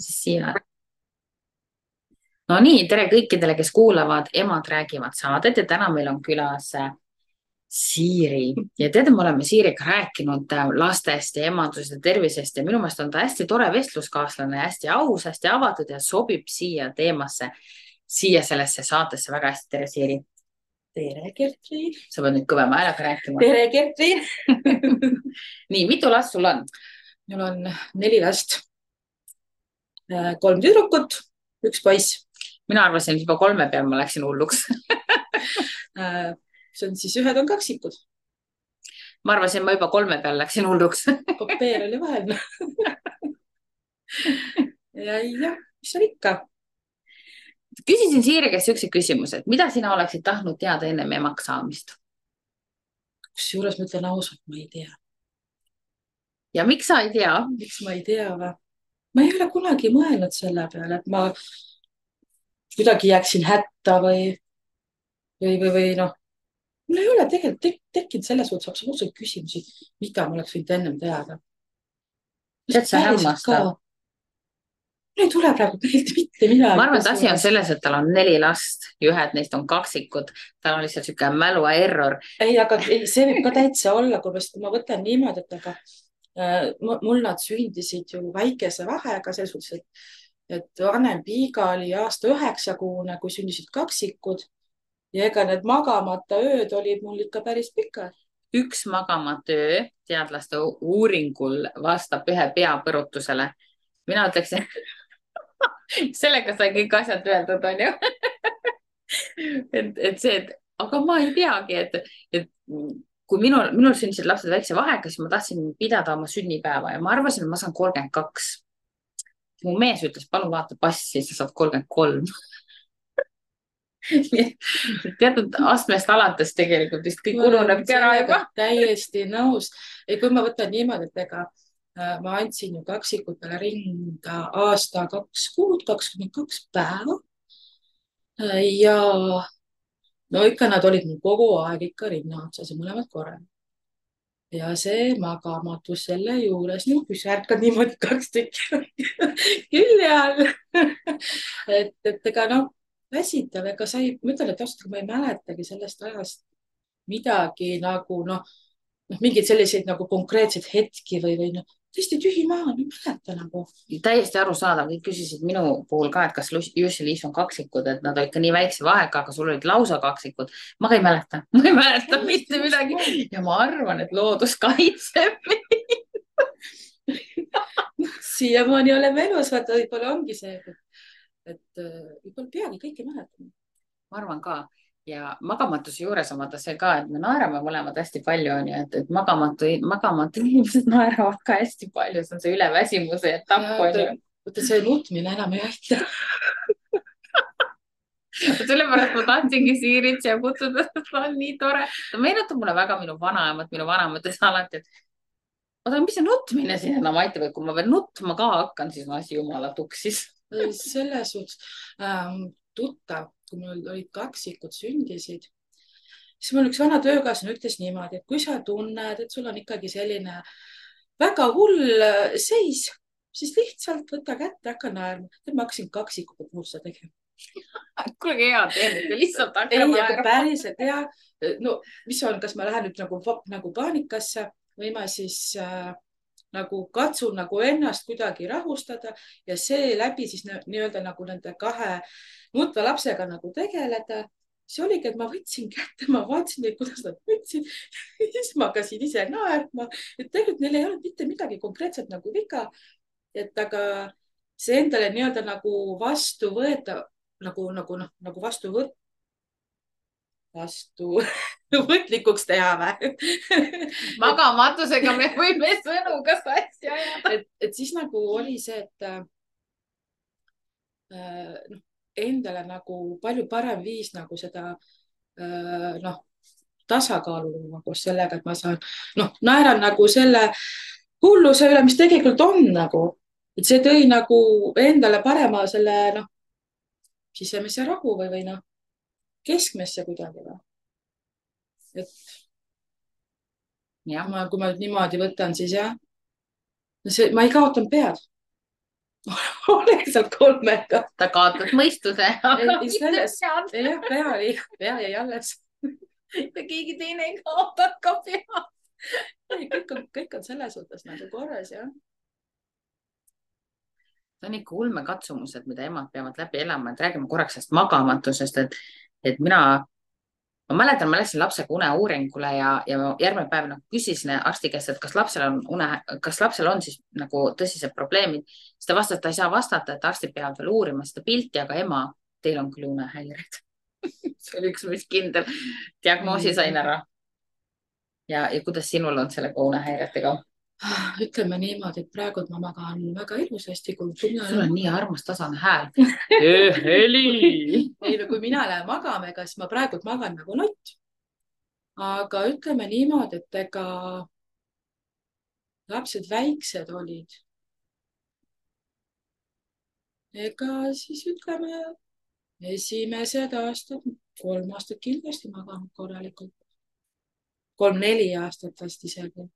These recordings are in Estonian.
siis siia. No nii, tere kõikidele, kes kuulavad Emad räägivad saadet ja täna meil on külas Siiri. Ja teate, me oleme Siiriga rääkinud lastest ja emadusest ja tervisest ja minu meelest on ta hästi tore vestluskaaslane, hästi aus, hästi avatud ja sobib siia teemasse, siia sellesse saatesse väga hästi. Tere, Siiri. Tere, Gertrude. Sa pead nüüd kõvema häälega rääkima. Tere, Gertrude. Nii, mitu last sul on? Mul on 4 last. 3 tüdrukut, 1 poiss. Mina arvasin, et juba 3 peal ma läksin hulluks. See on siis ühed on kaksikud. Ma arvasin, ma juba 3 peal läksin hulluks. Kopeer oli vahel. Ja, mis on ikka? Küsisin Siiri käest siukse küsimuse, et mida sina oleksid tahtnud teada ennem emaks saamist? Kusjuures ma ütlen ausalt, ma ei tea. Ja miks sa ei tea? Miks ma ei tea või? Ma ei ole kunagi mõelnud selle peale, et ma kuidagi jääksin hätta või noh. Mul ei ole tegelikult tekkinud selles suhtes absoluutselt küsimusi, mida ma oleks võinud ennem teada. Tead, sa hämmastav. Mul ei tule praegu meelde mitte midagi. Ma arvan, et asi on selles, et tal on 4 last ja ühed neist on kaksikud. Tal on lihtsalt siuke mälu error. Ei, aga see võib ka täitsa olla, kui ma võtan niimoodi, et aga mul nad sündisid ju väikese vahega, selles suhtes, et vanem Piiga oli aasta 9-kuune, kui sündisid kaksikud ja ega need magamata ööd olid mul ikka päris pikad. Üks magamata öö teadlaste uuringul vastab 1 peapõrutusele. Mina ütleksin, sellega sai kõik asjad öeldud, on ju. et see, aga ma ei teagi, et kui minul sündisid lapsed väikse vahega, siis ma tahtsin pidada oma sünnipäeva ja ma arvasin, et ma saan 32. Mu mees ütles, palun vaata passi, sa saad 33. Teatud astmest alates tegelikult vist kõik ununebki ära juba. Täiesti nõus. Kui ma võtan niimoodi, et ega ma andsin ju kaksikutele rinda aasta 2 kuud, 22 päeva. Ja no ikka nad olid mul kogu aeg ikka rinna otsas ja mõlemad korral. Ja see magamatus selle juures, kui sa ärkad niimoodi 2 tükki külje all. et ega noh, väsitav, ega sa ei, ma ütlen, et ausalt, ma ei mäletagi sellest ajast midagi nagu mingeid selliseid nagu konkreetseid hetki või tõesti tühi maa, ei mäleta nagu. Täiesti arusaadav, kõik küsisid minu puhul ka, et kas Jussi Liis on kaksikud, et nad olid ka nii väikse vahega, aga sul olid lausa kaksikud. Ma ei mäleta mitte midagi ja ma arvan, et loodus kaitseb meid. Siiamaani oleme elus, vaata, võib-olla ongi see, et võib-olla peagi kõike mäletame. Ma arvan ka. Ja magamatuse juures on vaata see ka, et me naerame mõlemad hästi palju, on ju, et magamatu inimesed naeravad ka hästi palju, see on see üleväsimuse etapp, on ju. Võtta see nutmine enam ei aita. Sellepärast ma tahtsingi Siirit siia kutsuda, ta on nii tore. Ta meenutab mulle väga minu vanaemat ütles alati, et oota, mis see nutmine siin enam aitab, et kui ma veel nutma ka hakkan, siis on asi jumala tuksis. Selles suhtes tuttav, kui mul olid kaksikud sündisid, siis mul üks vana töökaaslane ütles niimoodi, et kui sa tunned, et sul on ikkagi selline väga hull seis, siis lihtsalt võta kätte, hakka naerma. Ma hakkasin kaksikute puhul seda tegema. Kuule, hea teeme, lihtsalt hakka naerma. Ei, aga päriselt hea. No, mis on, kas ma lähen nüüd nagu paanikasse või ma siis nagu katsun nagu ennast kuidagi rahustada ja seeläbi siis nii-öelda nagu nende 2 nutva lapsega nagu tegeleda. See oligi, et ma võtsin kätte, ma vaatasin neid, kuidas nad võtsid. Siis ma hakkasin ise naerma, et tegelikult neil ei olnud mitte midagi konkreetselt nagu viga. Et aga see endale nii-öelda nagu vastu võeta, nagu võtlikuks teha või? Magamatusega me võime sõnu ka sassi ajada. Et siis nagu oli see, et endale nagu palju parem viis nagu seda tasakaalu koos sellega, et ma saan, naeran nagu selle hulluse üle, mis tegelikult on nagu, et see tõi nagu endale parema selle sisemise rahu või keskmesse kuidagi või. Et ja kui ma nüüd niimoodi võtan, siis jah, ma ei kaotanud pead. olen sealt 3-ga. ta kaotas mõistuse, aga ei mitte selles, pead. jah, pea jäi alles. ja keegi teine ei kaotanud ka pead. ei, kõik on selles suhtes nagu korras, jah. See on ikka ulmekatsumused, mida emad peavad läbi elama, et räägime korraks sellest magamatusest, et ma mäletan, ma läksin lapsega uneuuringule ja ma järgmine päev nagu küsisin arsti käest, et kas lapsel on siis nagu tõsised probleemid. siis ta vastas, et ta ei saa vastata, et arstid peavad veel uurima seda pilti, aga ema, teil on küll unehäired. see oli üks mis kindel. diagnoosi sain ära. ja kuidas sinul on sellega unehäiretega? ütleme niimoodi, et praegu ma magan väga ilusasti, kui sul on nii armas tasane hääl. heli. ei no kui mina lähen magama, ega siis ma praegu magan nagu nott. aga ütleme niimoodi, et ega lapsed väiksed olid. ega siis ütleme esimesed aastad, 3 aastat kindlasti maganud korralikult. 3-4 aastat vast isegi.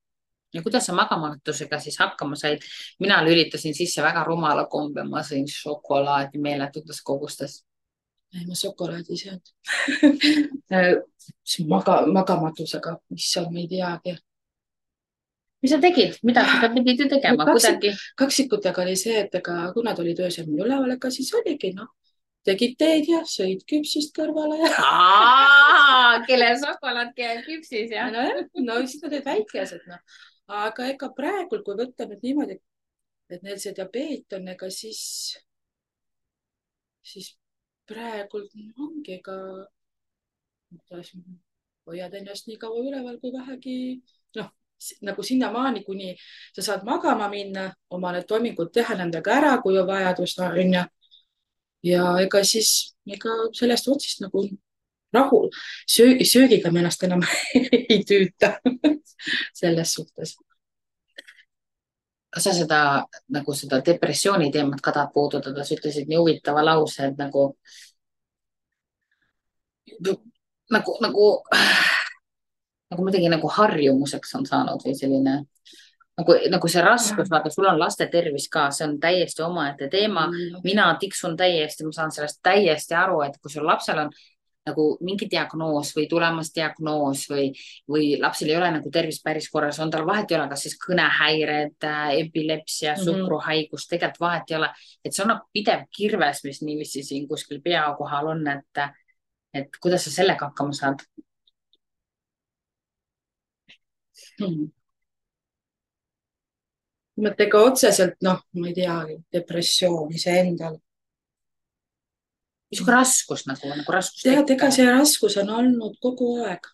ja kuidas sa magamatusega siis hakkama said? mina lülitasin sisse väga rumala kombe, ma sõin šokolaadi meeletutes kogustes. ei, ma šokolaadi ei söönud. magamatusega, issand, ma ei teagi. mis sa tegid, mida sa pidid ju tegema kuidagi? kaksikutega oli see, et ega kui nad olid öösel mul üleval, ega siis oligi noh, tegid teed ja sõid küpsist kõrvale ja. kellel šokolaad käib küpsis ja. no siis nad olid väikesed noh, aga ega praegu, kui võtta nüüd niimoodi, et neil see diabeet on, ega siis praegu ongi, ega hoiad ennast nii kaua üleval kui vähegi noh, nagu sinnamaani, kuni sa saad magama minna, oma need toimingud teha nendega ära, kui on vajadus, onju. ja ega siis sellest otsist nagu rahul. söögiga me ennast enam ei tüüta selles suhtes. kas sa seda depressiooni teemat ka tahad puudutada? sa ütlesid nii huvitava lause, et nagu midagi nagu harjumuseks on saanud või selline nagu see raskus, vaata, sul on laste tervis ka, see on täiesti omaette teema. mina tiksun täiesti, ma saan sellest täiesti aru, et kui sul lapsel on nagu mingi diagnoos või tulemas diagnoos või lapsel ei ole nagu tervis päris korras, on tal vahet ei ole, kas siis kõnehäired, epilepsia, suhkruhaigus, tegelikult vahet ei ole, et see on nagu pidev kirves, mis niiviisi siin kuskil pea kohal on, et kuidas sa sellega hakkama saad? mõttega otseselt, noh, ma ei tea, depressioon iseendal. mis raskus nagu raskus? tead, ega see raskus on olnud kogu aeg.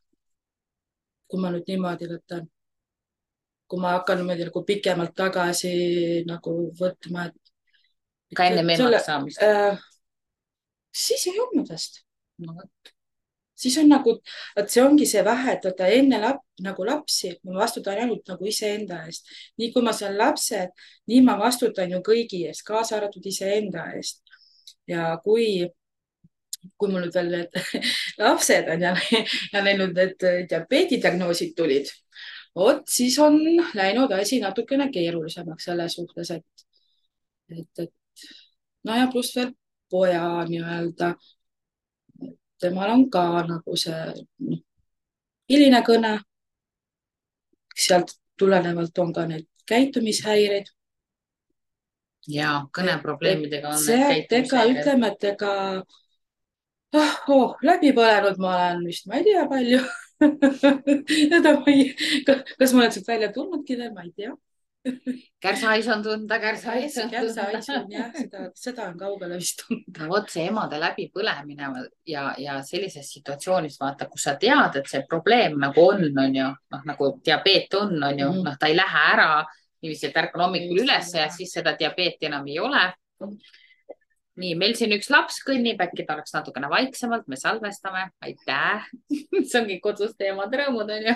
kui ma nüüd niimoodi võtan, kui ma hakkan niimoodi nagu pikemalt tagasi nagu võtma, et. ka enne emaks saamist? siis ei olnud vast. no vot. siis on nagu, et see ongi see vähe, et vaata enne nagu lapsi, ma vastutan ainult nagu iseenda eest. nii kui ma saan lapsed, nii ma vastutan ju kõigi eest, kaasa arvatud iseenda eest. ja kui mul nüüd veel need lapsed on ja neil nüüd need diabeedidiagnoosid tulid, vot siis on läinud asi natukene keerulisemaks selles suhtes, et no ja pluss veel poja nii-öelda. temal on ka nagu see hiline kõne. sealt tulenevalt on ka need käitumishäired. ja kõneprobleemidega on need käitumishäired. ütleme, et ega läbi põlenud ma olen vist, ma ei tea palju. kas ma olen sealt välja tulnudki veel, ma ei tea. Kärsahais on tunda, kärsahais on jah, seda on kaugele vist tunda. vot see emade läbipõlemine ja sellises situatsioonis vaata, kus sa tead, et see probleem nagu on ju, noh nagu diabeet on ju, noh ta ei lähe ära niiviisi, et ärkan hommikul üles ja siis seda diabeeti enam ei ole. nii, meil siin üks laps kõnnib, äkki ta oleks natukene vaiksemalt, me salvestame, aitäh. see ongi koduste emade rõõmud on ju.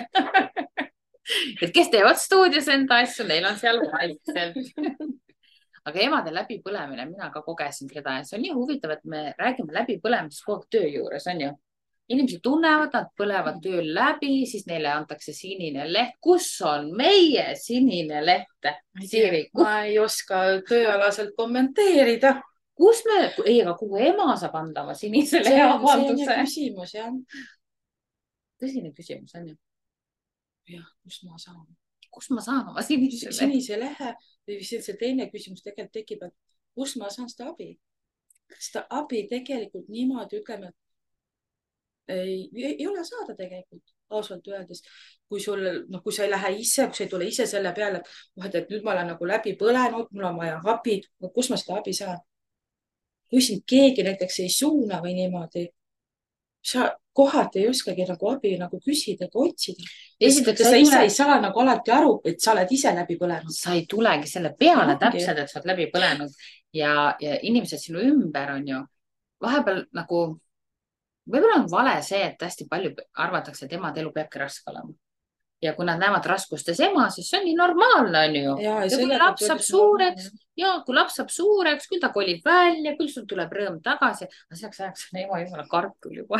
et kes teevad stuudios enda asju, neil on seal vaikselt. aga emade läbipõlemine, mina ka kogesin seda ja see on nii huvitav, et me räägime läbipõlemisest kogu aeg töö juures, on ju. inimesed tunnevad, nad põlevad tööl läbi, siis neile antakse sinine leht. Kus on meie sinine leht? Siiri, ma ei oska tööalaselt kommenteerida. kus me, ei, aga kuhu ema saab anda oma sinise lehe avalduse? See on küsimus, jah. Tõsine küsimus on ju. Jah, kus ma saan? Kus ma saan oma sinise lehe? Või see teine küsimus tegelikult tekib, et kus ma saan seda abi? Seda abi tegelikult niimoodi, ütleme, ei ole saada tegelikult, ausalt öeldes. Kui sul, noh, kui sa ei lähe ise, kui sa ei tule ise selle peale, et nüüd ma olen nagu läbi põlenud, mul on vaja abi, kus ma seda abi saan? Kui sind keegi näiteks ei suuna või niimoodi, sa kohati ei oskagi nagu abi nagu küsida ega otsida. Sa ise ei saa nagu alati aru, et sa oled ise läbi põlenud. Sa ei tulegi selle peale täpselt, et sa oled läbi põlenud ja inimesed sinu ümber on ju vahepeal nagu, võib-olla on vale see, et hästi palju arvatakse, et emade elu peabki raske olema. Ja kui nad näevad raskustes ema, siis see on nii normaalne, on ju. Ja kui laps saab suureks, kui laps saab suureks, küll ta kolib välja, küll sul tuleb rõõm tagasi. Aga selleks ajaks on ema jumala kartul juba.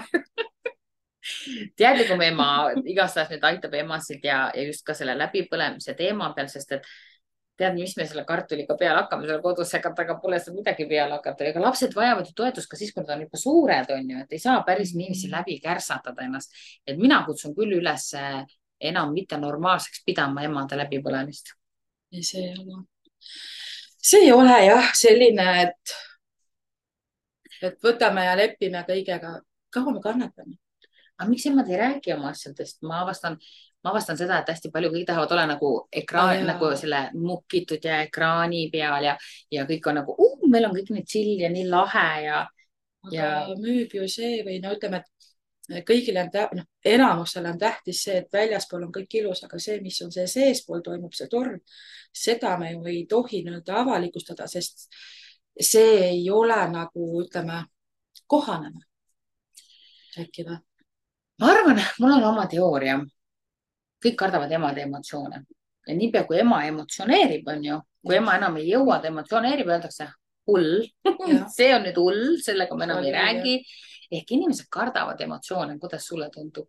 Teadlikum ema igastahes nüüd aitab emasid ja just ka selle läbipõlemise teema peal, sest et tead, mis me selle kartuliga peale hakkame, selle kodus aga pole seda midagi peale hakata. Ega lapsed vajavad ju toetust ka siis, kui nad on juba suured, on ju, et ei saa päris niiviisi läbi kärsatada ennast. Et mina kutsun küll üles enam mitte normaalseks pidama emade läbipõlemist. See ei ole jah selline, et võtame ja lepime kõigega. Kaua me kannatame? Aga miks emad ei räägi oma asjadest? Ma avastan seda, et hästi palju kõik tahavad olla nagu ekraan, nagu selle mukitud ja ekraani peal ja kõik on nagu, meil on kõik nii chill ja nii lahe ja müüb ju see või no ütleme, et kõigile on, enamusele on tähtis see, et väljaspool on kõik ilus, aga see, mis on see seespool toimub, see torm, seda me ju ei tohi nii-öelda avalikustada, sest see ei ole nagu, ütleme, kohaneme. Äkki või? Ma arvan, mul on oma teooria. Kõik kardavad emade emotsioone ja niipea kui ema emotsioneerib, on ju, kui ema enam ei jõua, ta emotsioneerib, öeldakse hull. See on nüüd hull, sellega me enam ei räägi. Ehk inimesed kardavad emotsioone. Kuidas sulle tundub?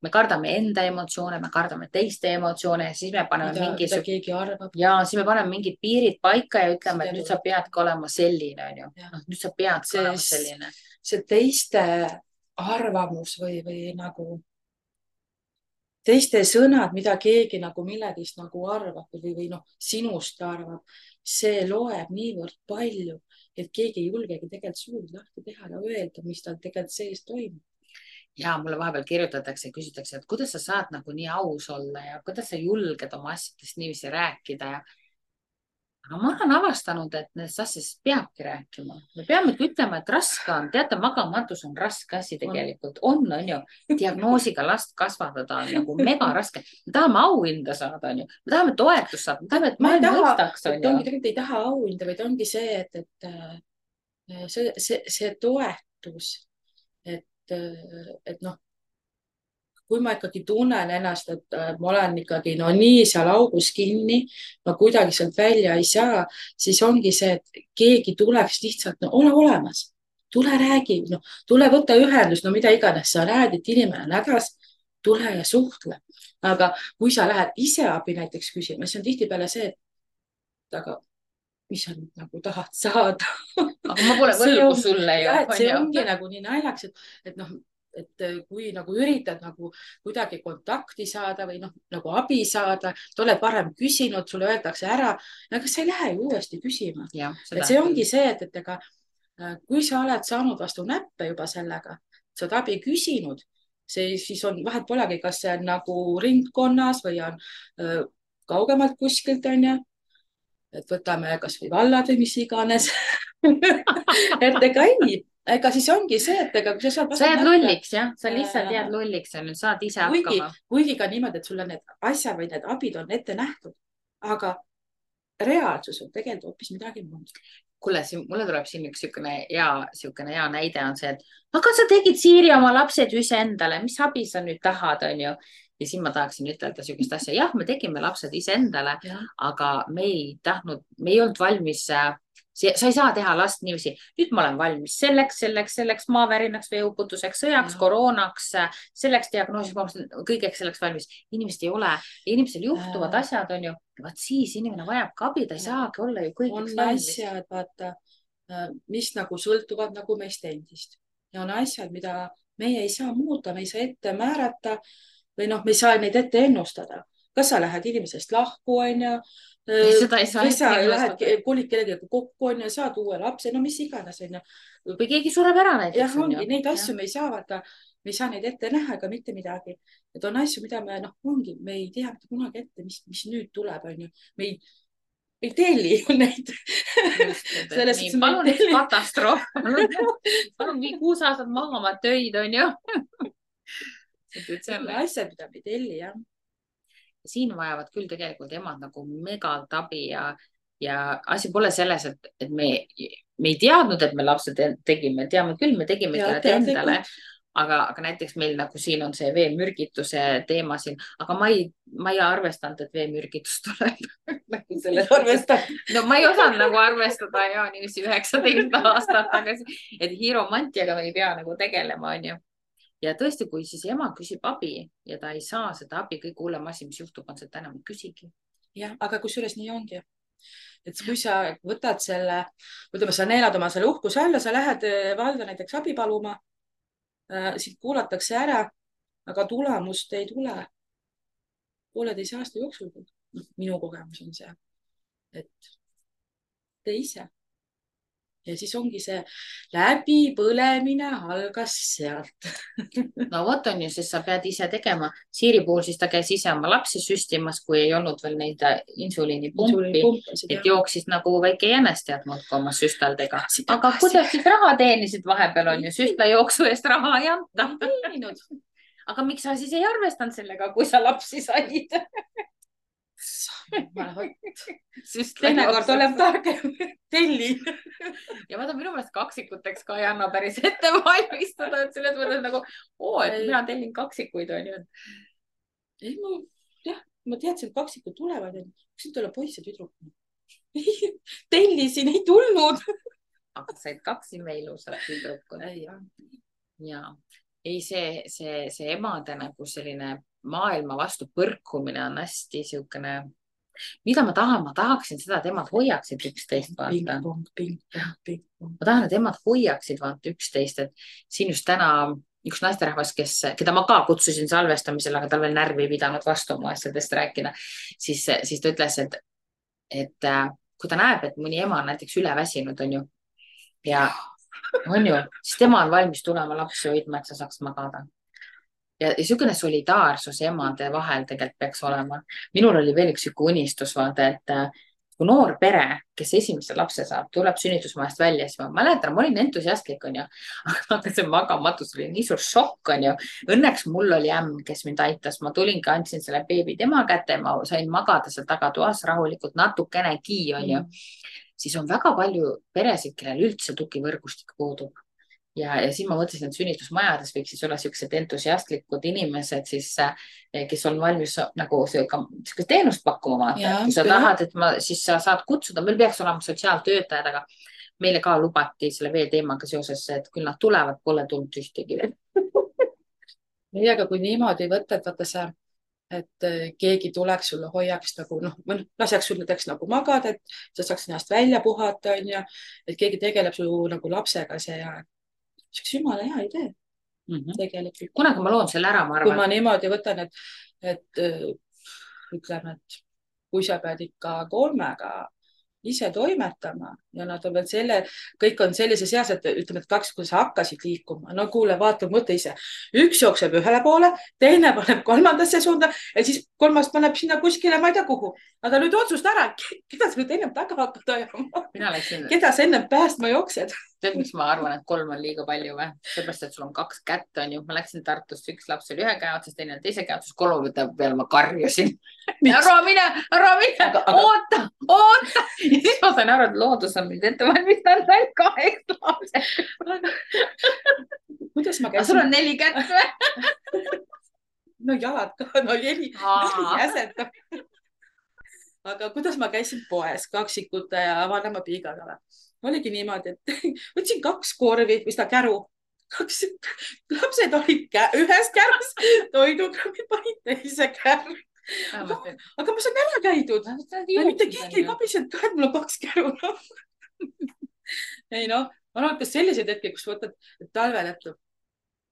Me kardame enda emotsioone, me kardame teiste emotsioone ja siis me paneme siis me paneme mingid piirid paika ja ütleme, et nüüd sa peadki olema selline, on ju. Nüüd sa peadki olema selline. See teiste arvamus või nagu teiste sõnad, mida keegi nagu millegist nagu arvab või sinust arvab, see loeb niivõrd palju, et keegi ei julgegi tegelikult suud lahti teha ja öelda, mis tal tegelikult sees toimub. Ja mulle vahepeal kirjutatakse ja küsitakse, et kuidas sa saad nagu nii aus olla ja kuidas sa julged oma asjadest niiviisi rääkida ja aga ma olen avastanud, et nendest asjadest peabki rääkima. Me peamegi ütlema, et raske on. Teate, magamatus on raske asi tegelikult. On ju. Diagnoosiga last kasvatada on nagu mega raske. Me tahame auhinda saada, on ju. Me tahame toetust saada. Me tahame, et maailma mõistaks, on ju. Tegelikult ei taha auhinda, vaid ongi see, et see toetus, et kui ma ikkagi tunnen ennast, et ma olen ikkagi nii seal augus kinni, ma kuidagi sealt välja ei saa, siis ongi see, et keegi tuleks lihtsalt, ole olemas, tule räägi, tule võta ühendust, mida iganes sa näed, et inimene on hädas, tule ja suhtle. Aga kui sa lähed ise abi näiteks küsima, siis on tihtipeale see, et aga mis sa nagu tahad saada. Aga ma pole võlgu sulle ju. See ongi nagu nii naljaks, et kui nagu üritad nagu kuidagi kontakti saada või nagu abi saada, te oled varem küsinud, sulle öeldakse ära, aga sa ei lähe ju uuesti küsima. Et see ongi see, et ega kui sa oled saanud vastu näppe juba sellega, sa oled abi küsinud, siis on vahet polegi, kas see on nagu ringkonnas või on kaugemalt kuskilt, on ju. Et võtame kas või vallad või mis iganes. Et ega siis ongi see, et ega kui sa jääd lulliks, jah? Sa lihtsalt jääd lulliks ja nüüd saad ise hakkama. Kuigi ka niimoodi, et sulle need asjad või need abid on ette nähtud, aga reaalsus on tegelikult hoopis midagi muud. Kuule, mulle tuleb siin üks hea näide on see, et aga sa tegid Siiri oma lapsed ju iseendale, mis abi sa nüüd tahad, on ju? Ja siin ma tahaksin ütelda sellist asja. Jah, me tegime lapsed iseendale, aga me ei olnud valmis sa ei saa teha last niiviisi. Nüüd ma olen valmis selleks maavärinaks, veeuputuseks, sõjaks, koroonaks, selleks diagnoosiks, kõigeks selleks valmis. Inimesed ei ole, inimesel juhtuvad asjad, on ju. Vaat siis inimene vajab ka abi, ta ei saagi olla ju kõigeks valmis. On asjad, vaata, mis nagu sõltuvad nagu meist endist. Ja on asjad, mida meie ei saa muuta, me ei saa ette määrata või noh, me ei saa neid ette ennustada. Kas sa lähed inimesest lahku, on ju? Seda ei saa ette ennustada. Kolid kellegagi kokku, on ju, saad uue lapse, no mis iganes, on ju. Või keegi sureb ära näiteks. Jah, ongi, neid asju me ei saa vaata, me ei saa neid ette näha ega mitte midagi. Et on asju, mida me, noh, ongi, me ei tea mitte kunagi ette, mis nüüd tuleb, on ju. Me ei telli ju neid. Palun üks katastroof. Palun vii 6 aastat maha oma töid, on ju. Asjad, mida me ei telli, jah. Siin vajavad küll tegelikult emad nagu megalt abi ja asi pole selles, et me ei teadnud, et me lapsed tegime. Teame küll, me tegime endale. Aga näiteks meil nagu siin on see veemürgituse teema siin, aga ma ei arvestanud, et veemürgitus tuleb. No ma ei osanud nagu arvestada ja niiviisi 19 aastat tagasi, et hiiromantiaga me ei pea nagu tegelema, on ju. Ja tõesti, kui siis ema küsib abi ja ta ei saa seda abi, kõige hullem asi, mis juhtub, on see, et enam ei küsigi. Jah, aga kusjuures nii ongi. Et kui sa võtad selle, ütleme, sa neelad oma selle uhkuse alla, sa lähed valda näiteks abi paluma, siit kuulatakse ära, aga tulemust ei tule 1,5 aasta jooksul. Minu kogemus on see, et tee ise. Ja siis ongi see läbipõlemine algas sealt. No vot on ju, siis sa pead ise tegema. Siiri puhul siis ta käis ise oma lapsi süstimas, kui ei olnud veel neid insuliinipumpi, et jooksis nagu väike jänes teadnud oma süstaldega. Aga kuidas siis raha teenisid vahepeal on ju, süstla jooksu eest raha ei anta. Aga miks sa siis ei arvestanud sellega, kui sa lapsi said? Teinekord oleb targem telli. Ja vaata, minu meelest kaksikuteks ka ei anna päris ette valmistada, et selles mõttes nagu, et mina tellin kaksikuid, on ju. Ma teadsin, et kaksikud tulevad, kus nüüd ole poiss ja tüdruk. Tellisin, ei tulnud. Aga said 2 ilusat tüdrukut. Ja ei, see emade nagu selline maailma vastu põrkumine on hästi siukene, mida ma tahan, ma tahaksin seda, et emad hoiaksid üksteist, vaata. Ma tahan, et emad hoiaksid vaata üksteist, et siin just täna üks naisterahvas, keda ma ka kutsusin salvestamisele, aga tal veel närvi ei pidanud vastu oma asjadest rääkida, siis ta ütles, et kui ta näeb, et mõni ema on näiteks üleväsinud, on ju, ja on ju, siis tema on valmis tulema lapsi hoidma, et sa saaks magada. Ja niisugune solidaarsus emade vahel tegelikult peaks olema. Minul oli veel üks unistus, vaata, et kui noor pere, kes esimese lapse saab, tuleb sünnitusmajast välja, siis ma mäletan, ma olin entusiastlik, on ju, aga see magamatus oli nii suur šokk, on ju. Õnneks mul oli ämm, kes mind aitas, ma tulingi, andsin selle beebi tema kätte, ma sain magada seal tagatoas rahulikult natukenegi, on ju. Siis on väga palju peresid, kellel üldse tugivõrgustik puudub. Ja siis ma mõtlesin, et sünnitusmajades võiks siis olla sellised entusiastlikud inimesed, siis, kes on valmis nagu sellist teenust pakkuma. Kui sa tahad, et siis sa saad kutsuda, meil peaks olema sotsiaaltöötajad, aga meile ka lubati selle vee teemaga seoses, et küll nad tulevad, pole tulnud ühtegi veel. Ei, aga kui niimoodi võtad, vaata sa, et keegi tuleks sulle hoiaks nagu, laseks sul näiteks nagu magada, et sa saaks ennast välja puhata, on ju, et keegi tegeleb su nagu lapsega see ja see oleks jumala hea idee. Tegelikult. Kunagi ma loon selle ära, ma arvan. Kui ma niimoodi võtan, et ütleme, et kui sa pead ikka 3 ise toimetama ja nad on veel kõik on sellises eas, et ütleme, et 2, kui sa hakkasid liikuma, no kuule, vaata, mõtle ise. Üks jookseb ühele poole, teine paneb 3. suunda ja siis 3. paneb sinna kuskile, ma ei tea kuhu. Aga nüüd otsusta ära, keda sa nüüd ennem taga hakkad ajama? Keda sa ennem päästma jooksed? Tead, miks ma arvan, et 3 on liiga palju või? Seepärast, et sul on 2 kätt, on ju. Ma läksin Tartust, üks laps oli 1 käe otsas, teine 2 käe otsas, 3 peale ma karjusin. Ära mine, oota. Ja siis ma sain aru, et loodus on mind ette valmistanud ainult 2 lapsed. Kuidas ma käisin? Aga sul on 4 kätt või? No jalad ka, no 4 jäset. aga kuidas ma käisin poes kaksikute ja vanemapiigaga? Oligi niimoodi, et võtsin 2 korvi või seda käru. 2 lapsed olid ühes kärus toidukraavid panid teise kärru. Aga ma saan ära käidud. Mitte keegi ei kabisenud ka, et mul on 2 käru. Ei noh, on olnud ka selliseid hetki, kus võtad talvel, et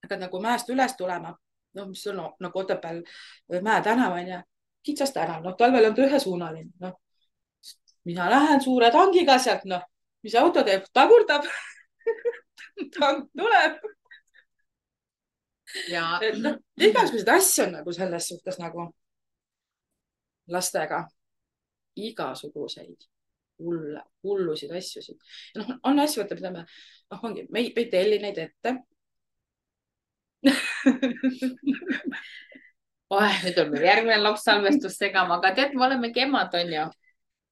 hakkad nagu mäest üles tulema. No, mis on nagu Otepääl Mäe tänav on ja kitsas tänav. No, talvel on ta ühesuunaline. No, mina lähen suure tangiga sealt, noh, mis auto teeb, tagurdab. Tank tuleb. ja no, igasuguseid asju on nagu selles suhtes nagu lastega. Igasuguseid hullusid asjusid. No, on asju, võtta, mida me ei telli neid ette. nüüd on meil järgmine laps salvestus segama, aga tead, me olemegi emad, on ju,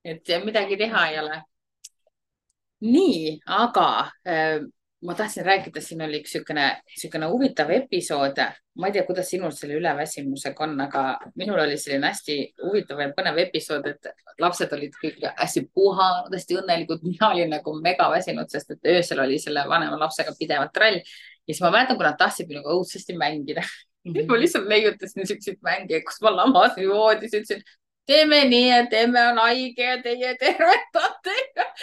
et midagi teha ei ole. nii, aga ma tahtsin rääkida, siin oli üks niisugune huvitav episood. Ma ei tea, kuidas sinul selle üleväsimusega on, aga minul oli selline hästi huvitav ja põnev episood, et lapsed olid kõik hästi puhanud, hästi õnnelikud. Mina olin nagu mega väsinud, sest et öösel oli selle vanema lapsega pidevalt trall. Ja siis ma mäletan, kui nad tahtsid minuga õudsesti mängida. Ma lihtsalt leiutasin niisuguseid mänge, kus ma lamasin voodis, ütlesin, teeme nii, et emme on haige ja teie tervetate.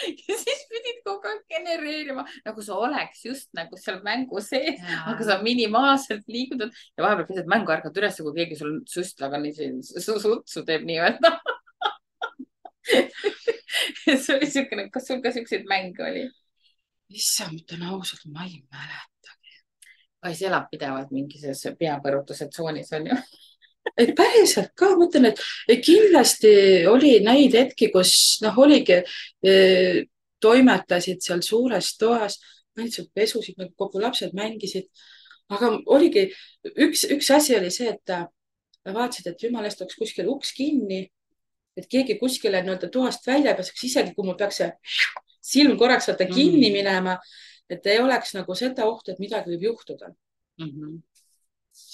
Ja siis pidid kogu aeg genereerima, nagu sa oleks just nagu seal mängu sees, aga sa minimaalselt liigutad ja vahepeal pisad mängu ärkad üles, kui keegi sul süstlaga sutsu teeb nii-öelda. See oli niisugune, kas sul ka niisuguseid mänge oli? Issand, ütlen ausalt, ma ei mäletagi. Kais elab pidevalt mingis peapõrutuse tsoonis, on ju? Et päriselt ka, mõtlen, et kindlasti oli neid hetki, kus oligi, toimetasid seal suures toas, pesusid, kogu lapsed mängisid, aga oligi üks asi oli see, et vaatasid, et jumala eest oleks kuskil uks kinni, et keegi kuskile nii-öelda toast välja pääseks, isegi kui mul peaks see silm korraks kinni minema, et ei oleks nagu seda ohtu, et midagi võib juhtuda.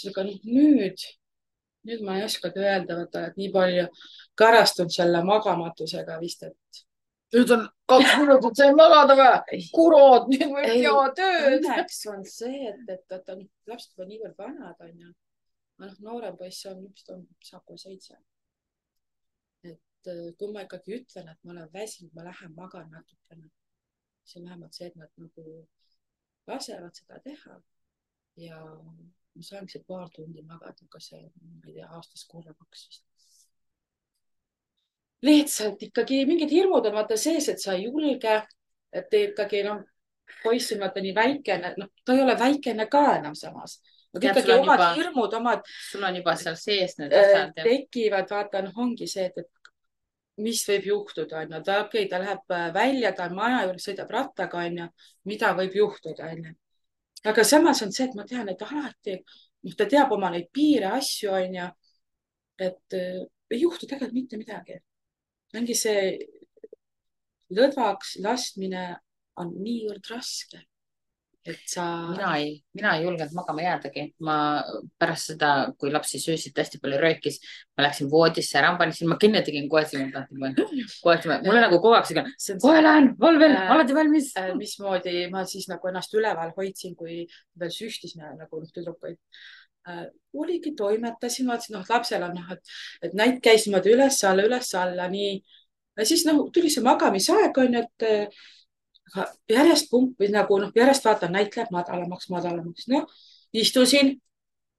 Aga nüüd ma ei oskagi öelda, et nii palju karastunud selle magamatusega vist, et. Nüüd on 2 minutit sai magada või? Kurod, nüüd võib teha tööd. Õnneks on see, et lapsed juba niivõrd vanad on ja noorem poiss saab kohe 7. Et kui ma ikkagi ütlen, et ma olen väsinud, ma lähen magan natukene. See on vähemalt see, et nad nagu lasevad seda teha ja ma saangi see paar tundi magada, aga see, ma ei tea, aastas korra 2 vist. Lihtsalt ikkagi mingid hirmud on vaata sees, et sa ei julge, et ikkagi poiss on vaata nii väikene, ta ei ole väikene ka enam samas. Ikkagi omad hirmud, sul on juba seal sees need asjad. Tekivad, vaata, ongi see, et mis võib juhtuda, on ju. Ta läheb välja, ta on maja juures, sõidab rattaga, on ju, mida võib juhtuda, on ju. Aga samas on see, et ma tean, et alati, ta teab oma neid piire, asju, on ju, et ei juhtu tegelikult mitte midagi. Ongi see lõdvaks laskmine on niivõrd raske, et sa. Mina ei julgenud magama jäädagi. Ma pärast seda, kui lapsi söösid hästi palju röökis, ma läksin voodisse ära, ma kinni tegin kohe silma. Mulle nagu kogu aeg kohe lähen, valvel, alati valmis. Mismoodi ma siis nagu ennast üleval hoidsin, kui veel süstisime nagu tüdrukuid. Oligi, toimetasin, vaatasin, lapsel on, et näit käis niimoodi üles-alla, nii. Ja siis tuli see magamisaeg, on, et järjest pumpis nagu, järjest vaatan, näit läheb madalamaks. Istusin,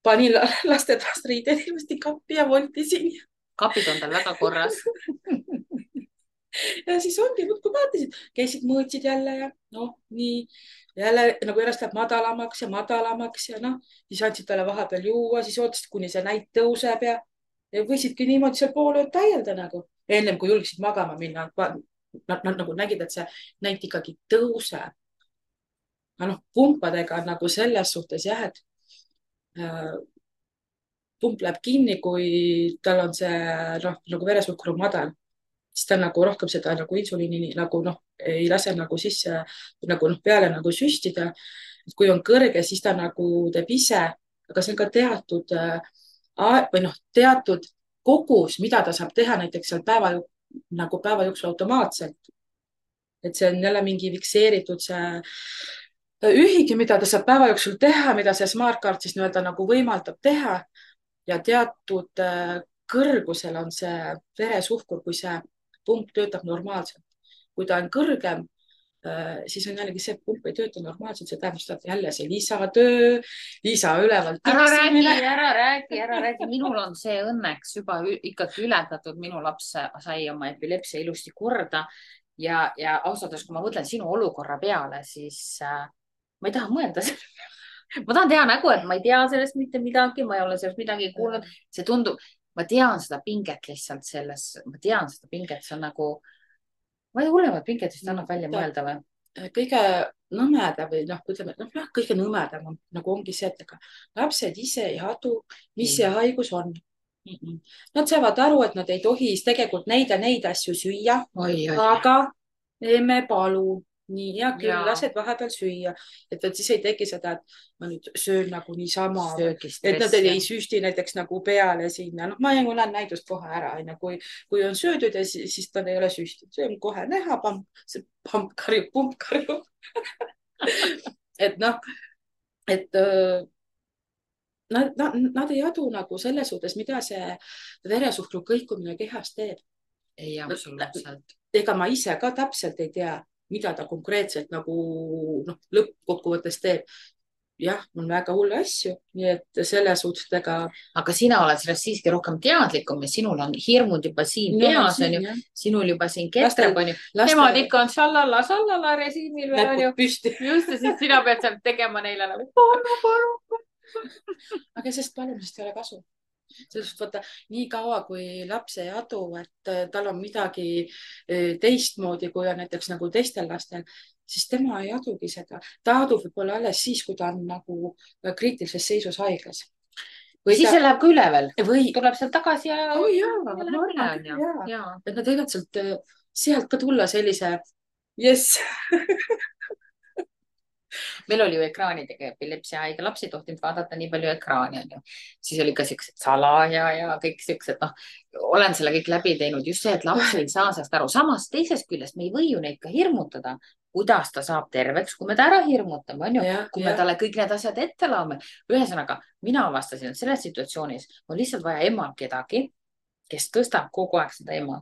panin lastetoast riided ilmasti kappi ja voltisin. Kapid on tal väga korras. Ja siis ongi, kui vaatasid, käisid mõõtsid jälle ja nii. Jälle nagu järjest läheb madalamaks ja siis andsid talle vahepeal juua, siis ootasid, kuni see näit tõuseb ja võisidki niimoodi seal pool ööd täielda nagu. Ennem kui julgsid magama minna, nad nagu nägid, et see näit ikkagi tõuseb. Pumpadega nagu selles suhtes jah, et pump läheb kinni, kui tal on see nagu veresuhkur on madal. Siis ta nagu rohkem seda nagu insuliini nagu ei lase nagu sisse nagu peale nagu süstida. Kui on kõrge, siis ta nagu teeb ise, aga see on ka teatud kogus, mida ta saab teha näiteks seal päeval nagu päeva jooksul automaatselt. Et see on jälle mingi fikseeritud see ühik, mida ta saab päeva jooksul teha, mida see Smartcard siis nii-öelda nagu võimaldab teha ja teatud kõrgusel on see veresuhkur, kui see pump töötab normaalselt. Kui ta on kõrgem, siis on jällegi see, et pump ei tööta normaalselt, see tähendab seda, et jälle see lisatöö, lisaülevalt tiksimine. ära räägi. Minul on see õnneks juba ikkagi ületatud. Minu laps sai oma epilepsia ilusti korda ja ausalt öeldes, kui ma mõtlen sinu olukorra peale, siis ma ei taha mõelda ma tahan teha nägu, et ma ei tea sellest mitte midagi, ma ei ole sellest midagi kuulnud. See tundub, ma tean seda pinget lihtsalt selles, ma tean seda pinget, see on nagu, ma ei hullemat pinget vist annab välja mõelda või? Kõige nõmedam või noh, ütleme, kõige nõmedam on, nagu ongi see, et ega lapsed ise ei adu, mis see haigus on. Nad saavad aru, et nad ei tohi tegelikult neid ja neid asju süüa, aga emme palun. Nii, hea küll, lased vahepeal süüa. Et siis ei teki seda, et ma nüüd söön nagu niisama. Et nad ei süsti näiteks nagu peale sinna. Noh, ma näen näidust kohe ära. Kui on söödud ja siis ta ei ole süsti. See on kohe näha, pump karjub. Et noh, et nad ei adu nagu selles suhtes, mida see veresuhkru kõikumine kehas teeb. Ei, absoluutselt. Ega ma ise ka täpselt ei tea, mida ta konkreetselt nagu lõppkokkuvõttes teeb. Jah, on väga hulle asju, nii et selles suhtes ega. Aga sina oled sellest siiski rohkem teadlikum ja sinul on hirmud juba siin peas, on ju. Sinul juba siin ketreb, on ju. Nemad ikka on sallala režiimil veel, on ju. Just, ja siis sina pead seal tegema neile nagu paru. Aga sest palumisest ei ole kasu. Sellest vaata, nii kaua, kui laps ei adu, et tal on midagi teistmoodi, kui on näiteks nagu teistel lastel, siis tema ei adugi seda. Ta adub võib-olla alles siis, kui ta on nagu kriitilises seisus haiglas. Või siis see läheb ka üle veel. Või tuleb sealt tagasi ja. Et nad võivad sealt ka tulla sellise, yes. Meil oli ju ekraanidega epilepsia haige laps ei tohtinud vaadata nii palju ekraani, on ju. Siis oli ka siuksed salaja ja kõik siuksed, noh, olen selle kõik läbi teinud. Just see, et laps ei saa sellest aru. Samas teisest küljest me ei või ju neid ka hirmutada, kuidas ta saab terveks, kui me ta ära hirmutame, on ju. Kui me talle kõik need asjad ette laome. Ühesõnaga, mina avastasin, et selles situatsioonis on lihtsalt vaja emal kedagi, kes tõstab kogu aeg seda ema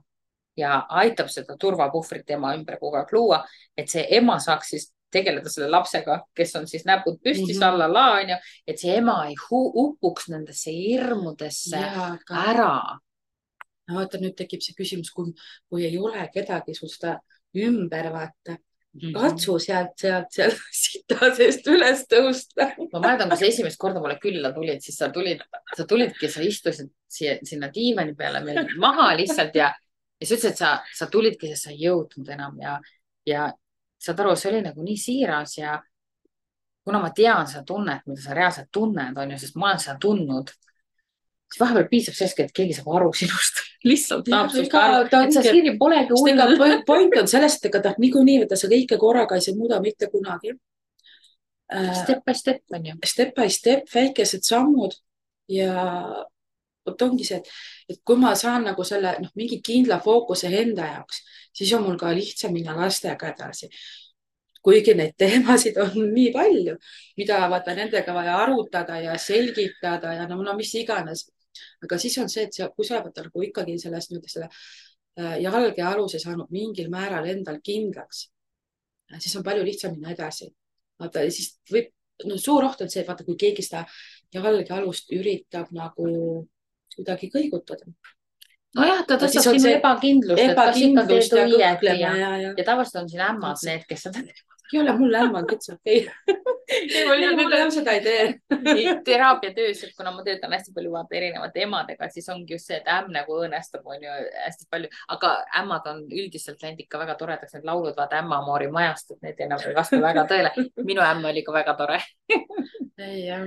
ja aitab seda turvapuhvrit ema ümber kogu aeg luua, et see ema saaks siis tegeleda selle lapsega, kes on siis näpud püsti sallala, on ju, et see ema ei upuks nendesse hirmudesse ära. No vaata, nüüd tekib see küsimus, kui ei ole kedagi sul seda ümber vaata. Katsu sealt sita seest üles tõusta. Ma mäletan, kui sa esimest korda mulle külla tulid, siis sa tulidki, sa istusid sinna diivani peale meil maha lihtsalt ja sa ütlesid, et sa tulidki, sest sa ei jõudnud enam ja saad aru, see oli nagu nii siiras ja kuna ma tean seda tunnet, mida sa reaalselt tunned, on ju, sest ma olen seda tundnud, siis vahepeal piisab sellest, et keegi saab aru sinust. Lihtsalt tahab sinust aru, et sa Siiri polegi hull. Point on sellest, et ta niikuinii võtta sa kõike korraga ei muuda mitte kunagi. Step by step, on ju. Step by step, väikesed sammud ja ongi see, et kui ma saan nagu selle mingi kindla fookuse enda jaoks, siis on mul ka lihtsam minna lastega edasi. Kuigi neid teemasid on nii palju, mida vaata nendega vaja arutada ja selgitada ja no mis iganes. Aga siis on see, et kui sa oled nagu ikkagi sellest selle jalge aluse saanud mingil määral endal kindlaks, siis on palju lihtsam minna edasi. Vaata, siis võib, suur oht on see, et vaata, kui keegi seda jalge alust üritab nagu kuidagi kõigutada. Nojah, ta tõstab sinu ebakindlust, ja tavaliselt on siin ämmad need, kes seda teevad. Ei ole mul ämmad, üldse okei. Mul seda ei tee. Teraapiatöös, kuna ma töötan hästi palju vaata erinevate emadega, siis ongi just see, et ämm nagu õõnestab, on ju hästi palju, aga ämmad on üldiselt läinud ikka väga toredaks, need laulud vaata ämmamoori majast, et need enam ei vasta väga tõele. Minu ämm oli ka väga tore. Jah,